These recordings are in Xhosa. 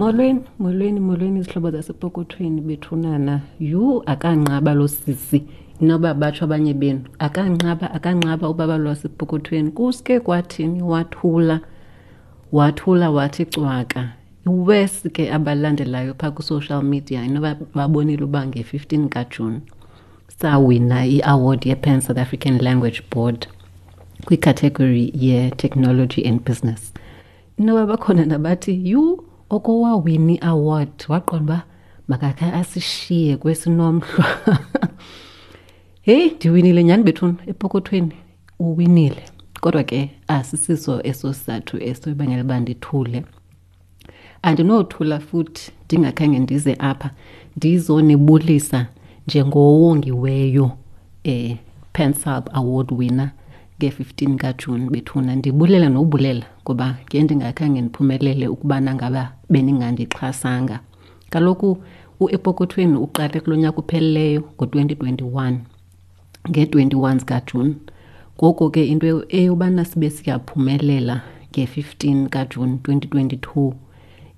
Molweni, molweni, molweni izihlobo zasepokothweni bethunana. Yhu, akanqaba lo sisi. Inoba batsho abanye benu. Akanqaba, akanqaba ubaba lwasepokothweni. Kuske kwathini wathula. Wathula wathi cwaka. Iwesi ke abalandelayo phaa kwi-social media inoba babonile uba nge-15 kaJuni sawina i-award ye-Pan South African Language Board kwicategory ye-technology and business. Inoba bakhona nabathi yhu okowawina i-award waqonda uba makakhe asishiye kwesinomhlwa. Heyi, ndiwinile nyhani bethuna epokothweni, uwinile. Kodwa ke asisiso eso sizathu eso ibangela uba ndithule. Andinothula futhi ndingakhange ndize apha ndizonibulisa njengowongiweyo PanSALB Award winner nge-15 kaJuni bethuna. Ndibulela nobulela ngoba ke ndingakhange ndiphumelele ukubana ngaba beningandixhasanga. Kaloku uEpokothweni uqale kulo nyaka upheleleyo ngo-2021 nge-21 zikaJuni. Ngoko ke into eyobana sibe siyaphumelela nge-15 kaJuni 2022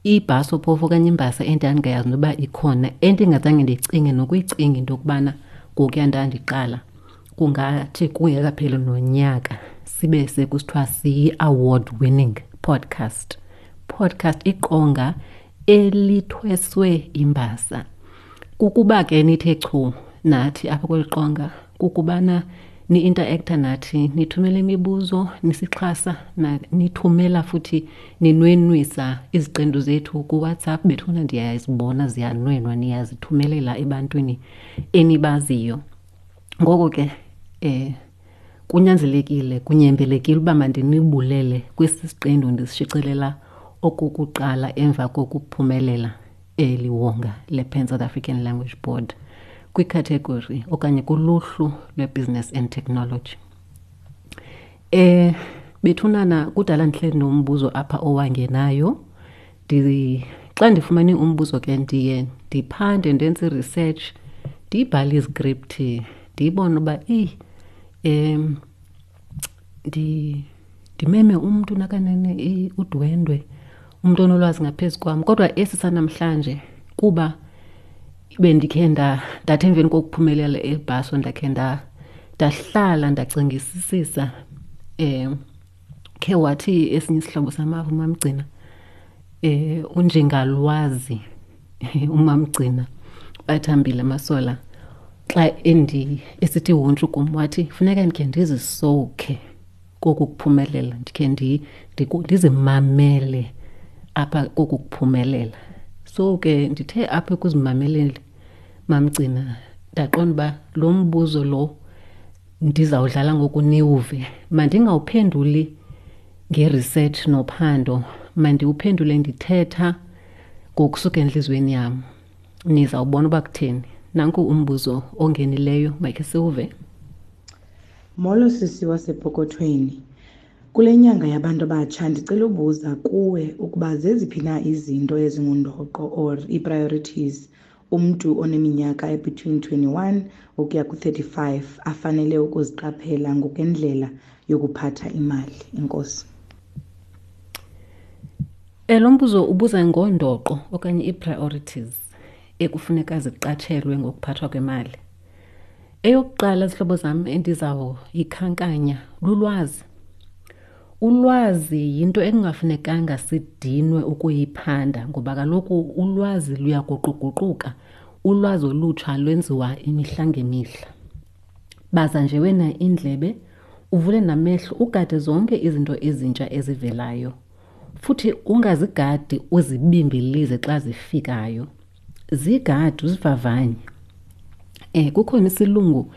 ibhaso phofu okanye imbasa endandingayazi noba ikhona, endingazange ndicinge nokuyicinga into yokubana ngokuya ndandiqala kungathi kungekapheli nonyaka sibe sekusithiwa siyi-award winning podcast. Podcast iqonga elithweswe imbasa. Kukuba ke nithe chu nathi apha kweli qonga, kukubana ni-interacta nathi, nithumela imibuzo, nisixhasa, nithumela futhi ninwenwisa iziqendu zethu kuWhatsApp. Bethuna ndiyazibona ziyanwenwa, niyazithumelela ebantwini enibaziyo. Ngoko ke kunyanzelekile, kunyembelekile uba mandinibulele kwesi siqendu ndisishicilela okokuqala emva kokuphumelela eli wonga le-Pan South African Language Board kwikhathegori okanye kuluhlu lwe-Business and Technology. Bethunana kudala ndihleli nombuzo apha owangenayo. Xa ndifumene umbuzo ke ndiye ndiphande, ndenze i-research, ndibhale izkripthi, ndiyibone uba eyi, ndimeme umntu nakanene udwendwe, umntu onolwazi ngaphezu kwam. Kodwa esi sanamhlanje kuba bendikhe ndathi emveni kokuphumelela ebhaso ndakhe ndahlala ndacingisisisa. Khe wathi esinye isihlobo samava uMamgcina, unjengalwazi uMamgcina Bathambile Masola, xa esithi huntshu kum wathi funeka ndikhe ndizisowukhe koku kuphumelela, ndikhe ndizimamele apha koku kuphumelela. So ke ndithe apha ekuzimameleni Mamgcina ndaqonda uba lo mbuzo lo ndizawudlala ngoku niwuve, mandingawuphenduli nge-research nophando, mandiwuphendule ndithetha ngokusuka entliziyweni yam. Nizawubona uba kutheni. Nanku umbuzo ongenileyo, makhe siwuve. Molo sisi wasepokothweni. Kule nyanga yabantu abatsha ndicela ubuza kuwe ukuba zeziphi na izinto ezingundoqo or ii-priorities umntu oneminyaka ebetween 21 ukuya ku-35 afanele ukuziqaphela ngokwendlela yokuphatha imali. Enkosi. Lo mbuzo ubuza ngondoqo okanye ii-priorities ekufuneka ziqatshelwe ngokuphathwa kwemali. Eyokuqala, zihlobo zam, endizawuyikhankanya lulwazi. Ulwazi yinto ekungafunekanga sidinwe ukuyiphanda ngoba kaloku ulwazi luyaguquguquka, ulwazi olutsha lwenziwa imihla ngemihla. Baza nje wena indlebe, uvule namehlo, ugade zonke izinto ezintsha ezivelayo. Futhi ungazigadi uzibimbilize xa zifikayo. Zigade uzivavanye. Kukhona isilungu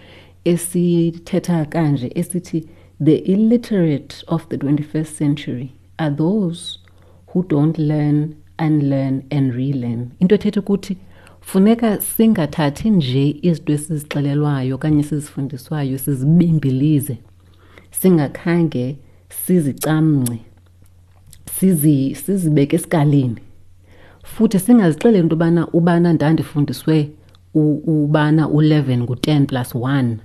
esithetha kanje esithi the illiterate of the 21st century are those who don't learn, unlearn and relearn. Into ethetha ukuthi funeka singathathi nje izinto esizixelelwayo okanye esizifundiswayo sizibimbilize, singakhange sizicamngce, sizibeke esikalini. Futhi singazixeleli into yobana ubana ndandifundiswe ubana u-11 ngu-10 plus 1,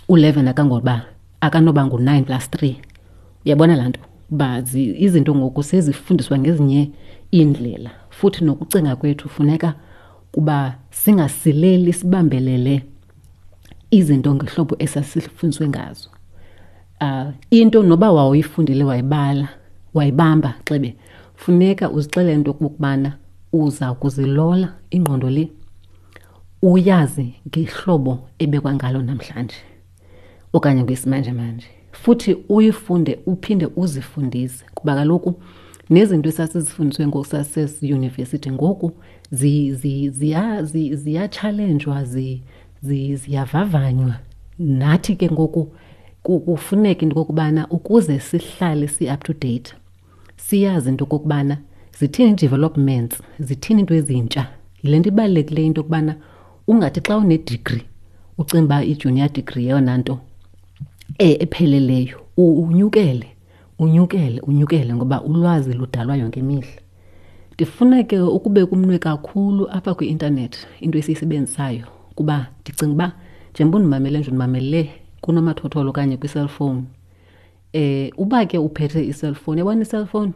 u-11 akanoba ngu-9 plus 3. Uyabona laa nto? Uba izinto ngoku sezifundiswa ngezinye iindlela, futhi nokucinga kwethu funeka kuba singasileli sibambelele izinto ngehlobo esasifundiswe ngazo. Into noba wawuyifundile wayibala, wayibamba xebe, funeka uzixelele into yokokubana uza kuzilola ingqondo le uyazi ngehlobo ebekwa ngalo namhlanje okanye ngesimanjemanje. Futhi uyifunde uphinde uzifundise, kuba kaloku nezinto esasizifundiswe ngoku sasesiyunivesithi ngoku ziyatshalenjwa, ziyavavanywa. Nathi ke ngoku kufuneka into yokokubana ukuze sihlale si-up to date, siyazi into yokokubana zithini ii-developments, zithini iinto ezintsha. Yile nto ibalulekileyo into yokubana ungathi xa une-degree ucinga uba i-junior degree yeyona nto epheleleyo. Unyukele, unyukele, unyukele ngoba ulwazi ludalwa yonke imihla. Ndifuna ke ukubeka umnwe kakhulu apha kwi-intanethi, into esiyisebenzisayo, kuba ndicinga uba njengoba undimamele nje undimamele kunomathotholo okanye kwi-cellphone. Uba ke uphethe i-cellphone, yabona i-cellphone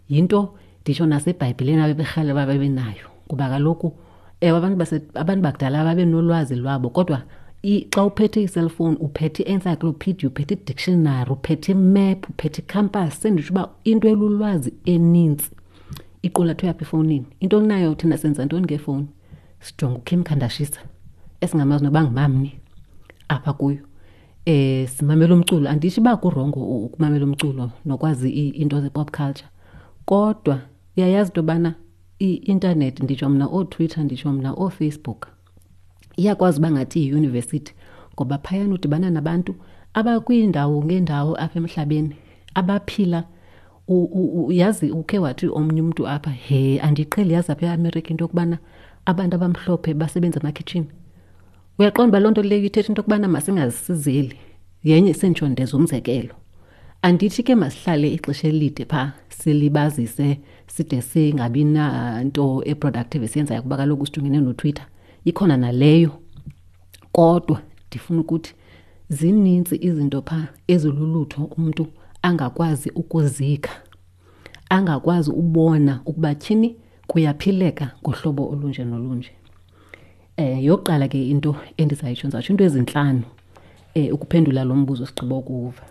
yinto nditsho naseBhayibhileni abeberhalela uba babe nayo, kuba kaloku ewe abantu bakudala babenolwazi lwabo, kodwa xa uphethe i-cellphone uphethe i-encyclopedia, uphethe i-dictionary, uphethe i-map, uphethe i-compass. Senditsho uba into elulwazi enintsi iqulathwe apha efowunini. Into onayo thina senza ntoni ngefowuni? Sijonga uKim Kardashian esingamazi noba ngumamni apha kuyo. Simamela umculo. Anditsho uba kurongo ukumamela umculo nokwazi iinto ze-pop culture, kodwa uyayazi into yobana i-intanethi, nditsho mna ooTwitter, nditsho mna ooFacebook, iyakwazi uba ngathi yiyunivesithi, ngoba phayana udibana nabantu abakwiindawo ngeendawo apha emhlabeni abaphila. Yazi ukhe wathi omnye umntu apha, he, andiqheli yazi apha eAmerica into yokubana abantu abamhlophe basebenza emakhitshini. Uyaqonda uba loo nto leyo ithetha into yokubana masingazisizeli. Yenye senditsho ndeza umzekelo. Andithi ke masihlale ixesha elide phaa silibazise side singabi nanto e-productive esiyenzayo, kuba kaloku sijongene noTwitter, ikhona naleyo. Kodwa ndifuna ukuthi zinintsi izinto phaa ezilulutho umntu angakwazi ukuzikha, angakwazi ubona ukuba tyhini kuyaphileka ngohlobo olunje nolunje. Yokuqala ke into endizayitsho, ndizawutsho into ezintlanu ukuphendula lo mbuzo sigqiba ukuwuva.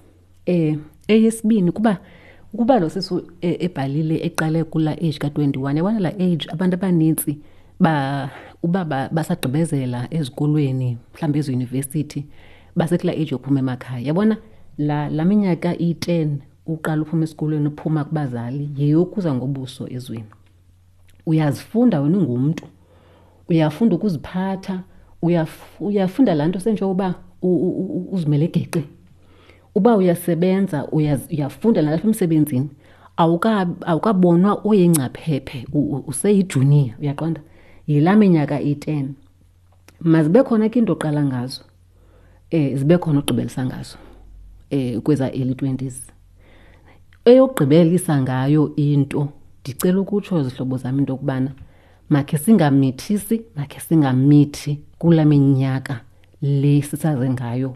Eyesibini, ukuba lo sisi ebhalile eqale kulaa age ka-21, yabona laa age abantu abanintsi uba basagqibezela ezikolweni, mhlawumbi eziyunivesithi, basekulaa age yophuma emakhaya. Yabona laa minyaka iyi-10 uqala uphuma esikolweni, uphuma kubazali, yeyokuza ngobuso ezweni. Uyazifunda wena ungumntu, uyafunda ukuziphatha, uyafunda laa nto senjengoba uzimele geqe. Uba uyasebenza, uyafunda nalapha emsebenzini, awukabonwa uyingcaphephe, useyijuniya, uyaqonda? Yilaa minyaka iyi-10. Mazibe khona ke into oqala ngazo, zibe khona ogqibelisa ngazo, kweza early 20s. Eyokugqibelisa ngayo into, ndicela ukutsho zihlobo zam into yokubana makhe singamithisi, makhe singamithi kulaa minyaka le sisaze ngayo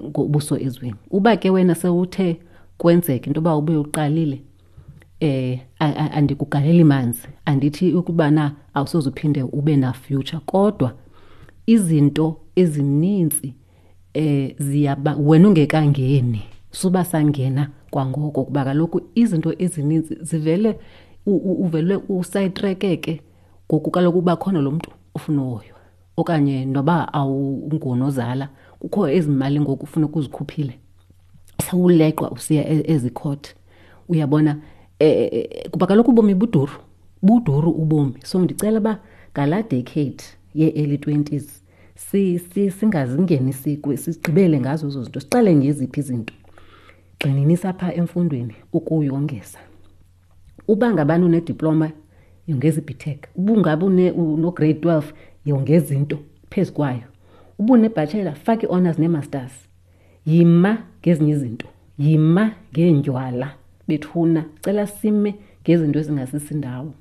ngobuso ezweni. Uba ke wena sewuthe kwenzeka into yoba ube uqalile, andikugaleli manzi, andithi ukubana awusoze uphinde ube na future, kodwa izinto ezininzi ziyaba wena ungekangeni, suba sangena kwangoko, kuba kaloku izinto ezininzi zivele uvele usayitrekeke ngoku kaloku uba khona lo mntu ufuna uhoywa, okanye noba awungunozala kukho ezi mali ngoku ufuna ukuzikhuphile, sewuleqwa usiya ezikhoti, uyabona. Kuba kaloku ubomi buduru, buduru ubomi. So ndicela uba ngalaa decade yee-early 20s singazingenisi sigqibele ngazo ezo zinto, siqale ngeziphi izinto. Gxininisa phaa emfundweni ukuyongeza. Uba ngabani unediploma, yongeza i-BTech. Uba ungabe uno-grade 12, yongeza into phezu kwayo. Uba une-bachelor, faka ii-honours nee-masters. Yima ngezinye izinto, yima ngeendywala bethuna, cela sime ngezinto ezingasisindawo.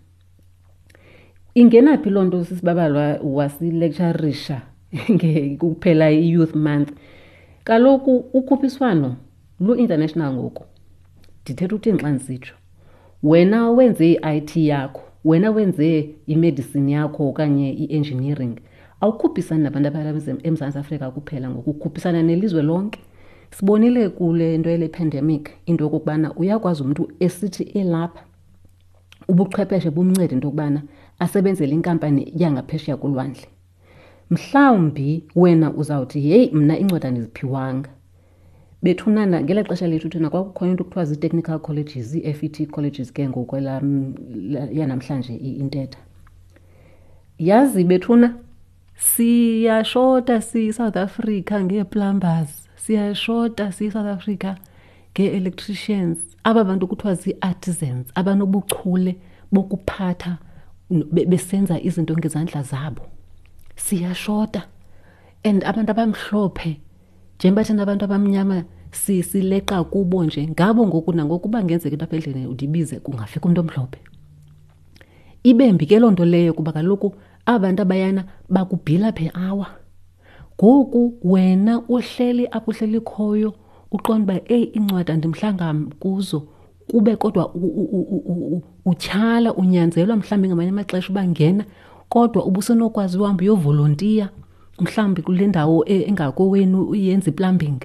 Ingena phi loo nto sisibabalwa wasilecturisha kuphela i-Youth Month? Kaloku ukhuphiswano lu-international ngoku. Ndithetha ukuthini xa ndisitsho? Wena wenze i-IT yakho, wena wenze imedicine yakho okanye i-engineering, awukhuphisani nabantu abalapha eMzantsi Afrika kuphela ngoku, ukhuphisana nelizwe lonke. Sibonile kule nto yale pandemic into yokokubana uyakwazi umntu esithi elapha ubuchwepheshe bumncede into yokubana asebenzele inkampani yangaphesheya kolwandle. Mhlawumbi wena uzawuthi heyi mna iincwadi andiziphiwanga. Bethunana ngela xesha lethu thina kwakukhona into kuthiwa zii-technical colleges, ii-F_E_T colleges ke ngokwelam yanamhlanje intetha. Yazi bethuna siyashota siyiSouth Africa ngee-plumbers, siyashota siyiSouth Africa ngee-electricians. Aba bantu kuthiwa zii-artisans abanobuchule bokuphatha besenza izinto ngezandla zabo. Siyashota and abantu abamhlophe njengoba thina abantu abamnyama sileqa kubo nje ngabo ngoku nangoku uba ngenzeka into apha endlini undibize kungafika umntu omhlophe. Ibe mbi ke loo nto leyo kuba kaloku aba bantu abayana bakubhila per hour. Ngoku wena uhleli apho uhleli khoyo uqonda uba eyi iincwadi andimhlanga kuzo kube kodwa utyhala unyanzelwa mhlawumbi ngamanye amaxesha uba ngena kodwa ubusenokwazi uhamba uyovolontiya mhlawumbi kule ndawo engakowenu uyenza i-plumbing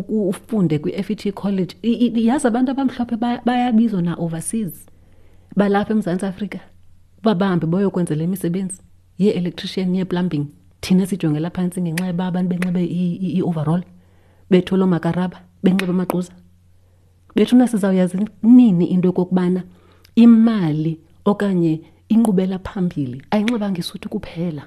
ufunde kwi-F_E_T college. Yazi abantu abamhlophe bayabizwa na-overseas balapha eMzantsi Afrika uba bahambe bayokwenza le misebenzi yee-electrician yee-plumbing. Thina sijongela phantsi ngenxa yoba abantu benxibe i-overall, bethwele oomakaraba, benxibe amaquza. Bethuna sizawuyazi nini into yokokubana imali okanye inkqubela phambili ayinxibanga isuti kuphela.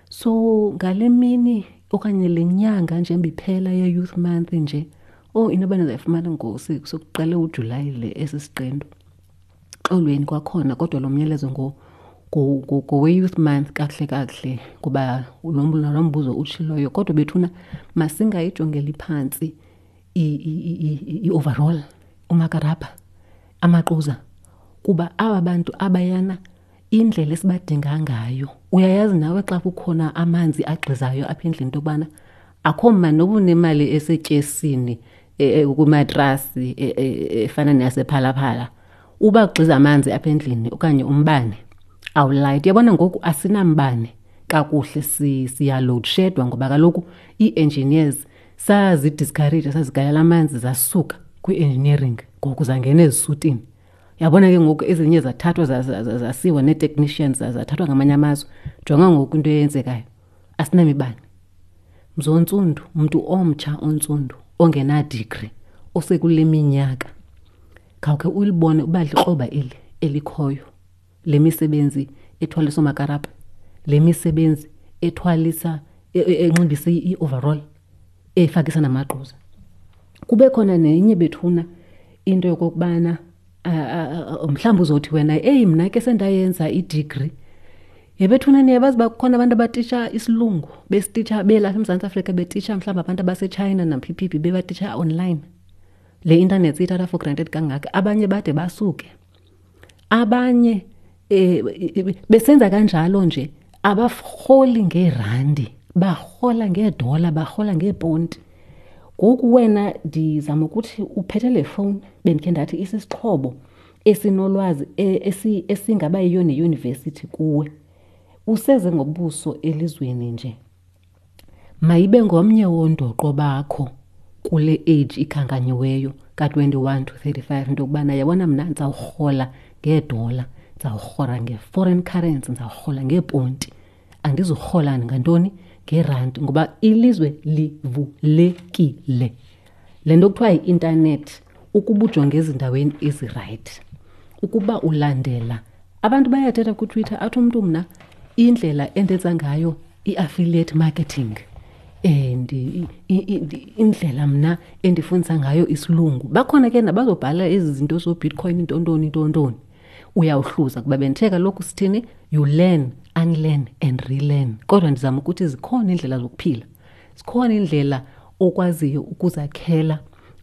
So ngale mini okanye le nyanga nje iphela ye-Youth Month nje, oh inoba nizayifumana sokuqale uJulayi le esi siqendu. Xolweni kwakhona kodwa lo myalezo ngowe-Youth Month kakuhle kakuhle kuba lo mbuzo utshiloyo. Kodwa bethuna masingayijongeli phantsi i-overall, umakarabha, amaquza, kuba aba bantu abayana indlela esibadinga ngayo. Uyayazi nawe xa kukhona amanzi agxizayo apha endlini into yokubana akho mani noba unemali esetyesini kwimatrasi efana neyasePhalaphala, uba kugxiza amanzi apha endlini okanye umbane awulayiti. Uyabona ngoku asinambane kakuhle, siyaloadshedwa ngoba kaloku ii-engineers sazidiscourage, sazigalela amanzi zasuka kwi-engineering ngoku zangena ezisutini. Uyabona ke ngoku ezinye zathathwa zasiwa nee-technicians zathathwa ngamanye amazwe. Jonga ngoku into eyenzekayo, asinamibane. Mzontsundu, mntu omtsha ontsundu ongenadigri osekule minyaka, khawukhe ulibone uba likroba eli elikhoyo le misebenzi ethwalisa oomakarabha, le misebenzi ethwalisa enxibisa i-overall, efakisa namagquza. Kube khona nenye bethuna into yokokubana mhlawumbi uzothi wena eyi mna ke sendayenza idigri. Yebethuna niyabazi uba kukhona abantu abatitsha isilungu, besititsha belapha eMzantsi Afrika, betitsha mhlawumbi abantu abaseTshayina naphiphi bebatitsha online. Le intanethi siyithatha for granted kangaka, abanye bade basuke. Abanye besenza kanjalo nje abarholi ngeerandi, barhola ngeedola, barhola ngeeponti. Ngoku wena ndizama ukuthi uphethe le fowuni, bendikhe ndathi isisixhobo esinolwazi esingaba yiyo neyunivesithi kuwe. Useze ngobuso elizweni nje. Mayibe ngomnye wondoqo bakho kule age ikhankanyiweyo ka-21 to 35 into yokubana yabona mna ndizawurhola ngeedola, ndizawurhola nge-foreign currency, ndizawurhola ngeeponti. Andizurhola ngantoni? Ngeerandi, ngoba ilizwe livulekile. Le nto kuthiwa yi-intanethi, ukuba ujonge ezindaweni ezirayithi, ukuba ulandela. Abantu bayathetha kuTwitter athi umntu mna indlela endenza ngayo i-affiliate marketing and indlela mna endifundisa ngayo isilungu. Bakhona ke nabazobhala ezi zinto zooBitcoin, intontoni, intontoni. Uyawuhluza kuba bendithe kaloku sithini, you learn, unlearn and relearn. Kodwa ndizama ukuthi zikhona iindlela zokuphila, zikhona iindlela okwaziyo ukuzakhela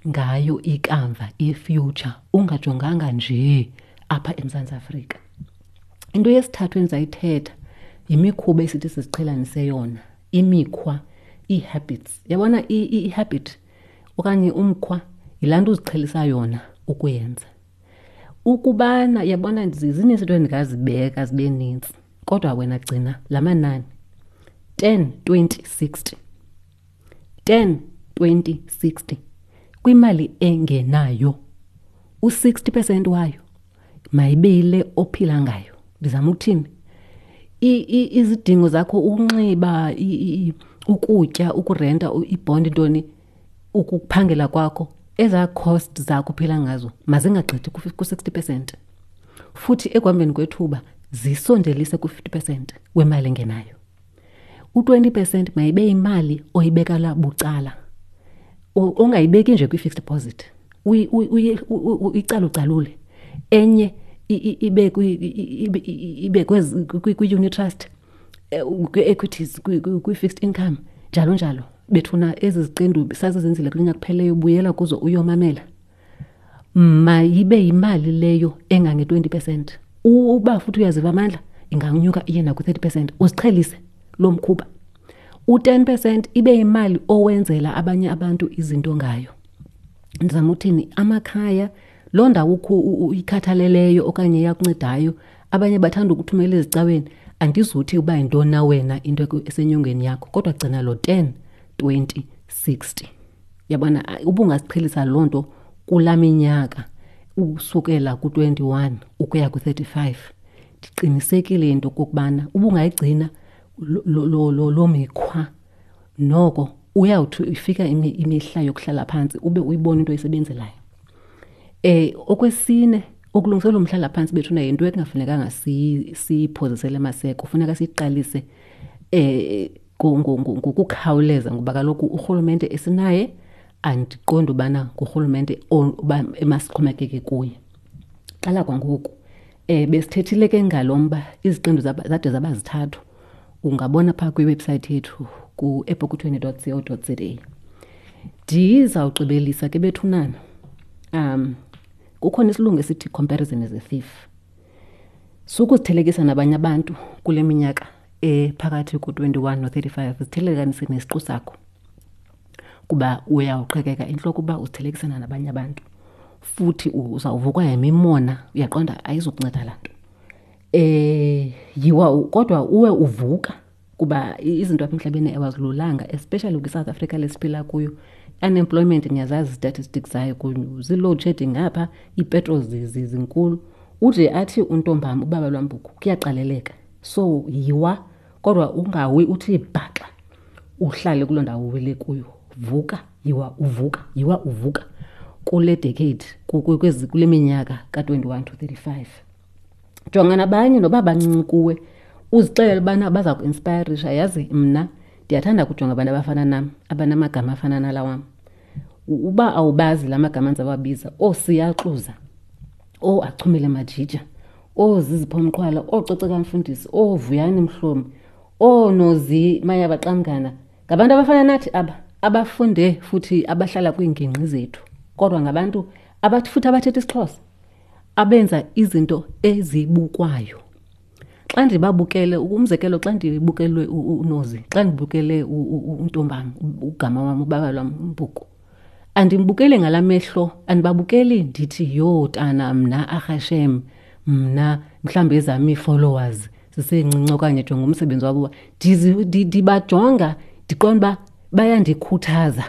ngayo ikamva, i-future, ungajonganga nje apha eMzantsi Afrika. Into yesithathu endizayithetha yimikhuba esithi siziqhelanise yona, imikhwa, ii-habits. Uyabona i-habit okanye umkhwa yilaa nto uziqhelisa yona. ukuyenza. Ukubana yabona zininzi into endingazibeka zibe nintsi, kodwa wena gcina la manani 10, 20, 60. 10, 20, 60 kwimali engenayo, u-60 percent wayo mayibe yile ophila ngayo. Ndizama ukuthini? Izidingo zakho, ukunxiba, ukutya, ukurenta, ibhondi, ntoni, ukuphangela kwakho, ezaa cost zakho uphila ngazo mazingagqithi ku-60 percent. Futhi ekuhambeni kwethuba zisondelise ku-50 percent wemali engenayo. U-20 percent mayibe yimali oyibekela bucala, ongayibeki nje kwi-fixed deposit, uyicalucalule. Enye ibe kwi-unit trust, kwi-equities, kwi-fixed income, njalo njalo. Bethuna ezi ziqendu sazizenzile kulo nyaka kupheleyo, buyela kuzo uyomamela. Mayibe yimali leyo engange-20 percent. Uba futhi uyaziva amandla, inganyuka iye naku-30 percent. Uziqhelise lo mkhuba. U-10 percent ibe yimali owenzela abanye abantu izinto ngayo. Ndizama uthini? Amakhaya, loo ndawo uyikhathaleleyo okanye iyakuncedayo, abanye bathanda ukuthumela ezicaweni. Andizuthi uba yintoni na wena into esenyongweni yakho, kodwa gcina lo 10, 20, 60. Yabona, ubungasiqhelisa loo nto kulaa minyaka usukela ku-21 ukuya ku-35. Ndiqinisekile into okokubana ubungayigcina loo mikhwa, noko uyawuthi ifika imihla yokuhlala phantsi ube uyibona into oyisebenzelayo. Okwesine, ukulungiselela umhlala phantsi bethuna yinto ekungafunekanga siyiphozisele maseko, kufuneka siyiqalise ngokukhawuleza, ngoba kaloku urhulumente esinaye andiqondi ubana ngurhulumente uba emasixhomekeke kuye. Qala kwangoku. Besithethile ke ngalo mba, iziqendu zade zaba zithathu. Ungabona phaa kwiwebhusayithi yethu ku-epokothweni dot co dot za. Ndizawugqibelisa ke bethunana. Kukhona isilungu esithi comparison is a thief. Sukuzithelekisa nabanye abantu kule minyaka ephakathi ku-21 no-35, zithelekanise nesiqu sakho, kuba uyawuqhekeka intloko uba uzithelekisana nabanye abantu, futhi uzawuvukwa yimimona, uyaqonda ayizukunceda laa nto. Yiwa kodwa uwe uvuka, kuba izinto apha emhlabeni awazilulanga, especially kwiSouth Africa lesiphila kuyo. Unemployment niyazazi statistics zayo, zii-load shedding ngapha, iipetrol zinkulu. Ude athi untombam ubaba lwambuku kuyaqaleleka. So yiwa kodwa ungawi uthi bhaxa, uhlale kuloo ndawo uwele kuyo. Vuka, yiwa uvuka, yiwa uvuka kule decade, kule minyaka ka-21 to 35. Jonga nabanye noba bancinci kuwe, uzixelele ubana baza ku-inspirisha. Yazi mna ndiyathanda ukujonga abantu abafana nam, abanamagama afana nala wam. Uba awubazi la magama ndizawabiza, ooSiyaxuza, ooAchumile Majija, ooZizipho Mqhwala, ooCoceka Mfundisi, ooVuyani Mhlomi, ooNozi Mayabaqamngana, ngabantu abafana nathi aba, abafunde futhi abahlala kwiingingqi zethu, kodwa ngabantu futhi abathetha isiXhosa, abenza izinto ezibukwayo. Xa ndibabukele, umzekelo, xa ndibukelwe uNozi, xa ndibukele untombam, ugama wam, ubaba lwam, uMbuku, andimbukeli ngala mehlo, andibabukeli ndithi yho tana mna arhashem, mna mhlawumbi ezam ii-followers zisencinci okanye jonga umsebenzi wabo. Ndibajonga ndiqonda uba bayandikhuthaza,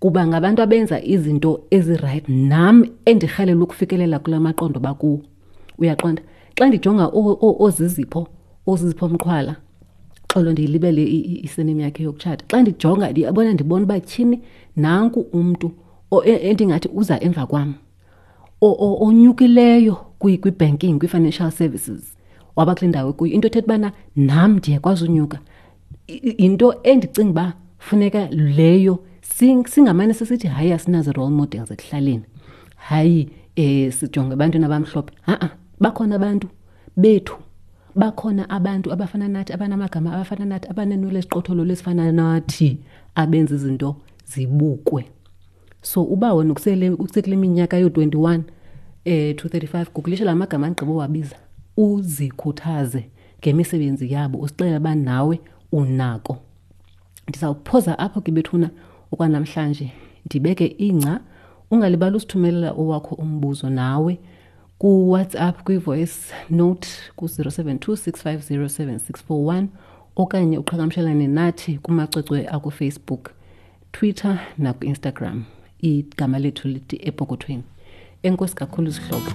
kuba ngabantu abenza izinto ezirayithi nam endirhalela ukufikelela kula maqondo bakuwo. Uyaqonda? Xa ndijonga oZizipho Mqhwala, xolo ndiyilibele isename yakhe yokutshata. Xa ndijonga ndiyabona, ndibona uba tyhini nanku umntu endingathi uza emva kwam, onyukileyo kwi-banking, kwi-financial services, waba kule ndawo ekuyo. Into ethetha ubana nam ndiyakwazi unyuka. Yinto endicinga uba funeka leyo singamane sisithi hayi asinazo role models ekuhlaleni, hayi sijonge ebantwini abamhlophe. Ha-a, bakhona abantu bethu, bakhona abantu abafana nathi, abanamagama abafana nathi, abaneenwele eziqotholo lesifana nathi, abenza izinto zibukwe. So uba wena usekule minyaka yoo-21 to 35, gugulisha la magama andigqiba uwabiza, uzikhuthaze ngemisebenzi yabo, uzixelele uba nawe unako. Ndizawuphoza apho ke bethuna okwanamhlanje, ndibeke ingca Ungalibali usithumelela owakho umbuzo nawe kuWhatsApp kwi-voice note ku-072 650 7641 okanye uqhagamshelane nathi kumacwecwe akuFacebook, Twitter nakuInstagram. Igama lethu lithi Epokothweni. Enkosi kakhulu zihlobo.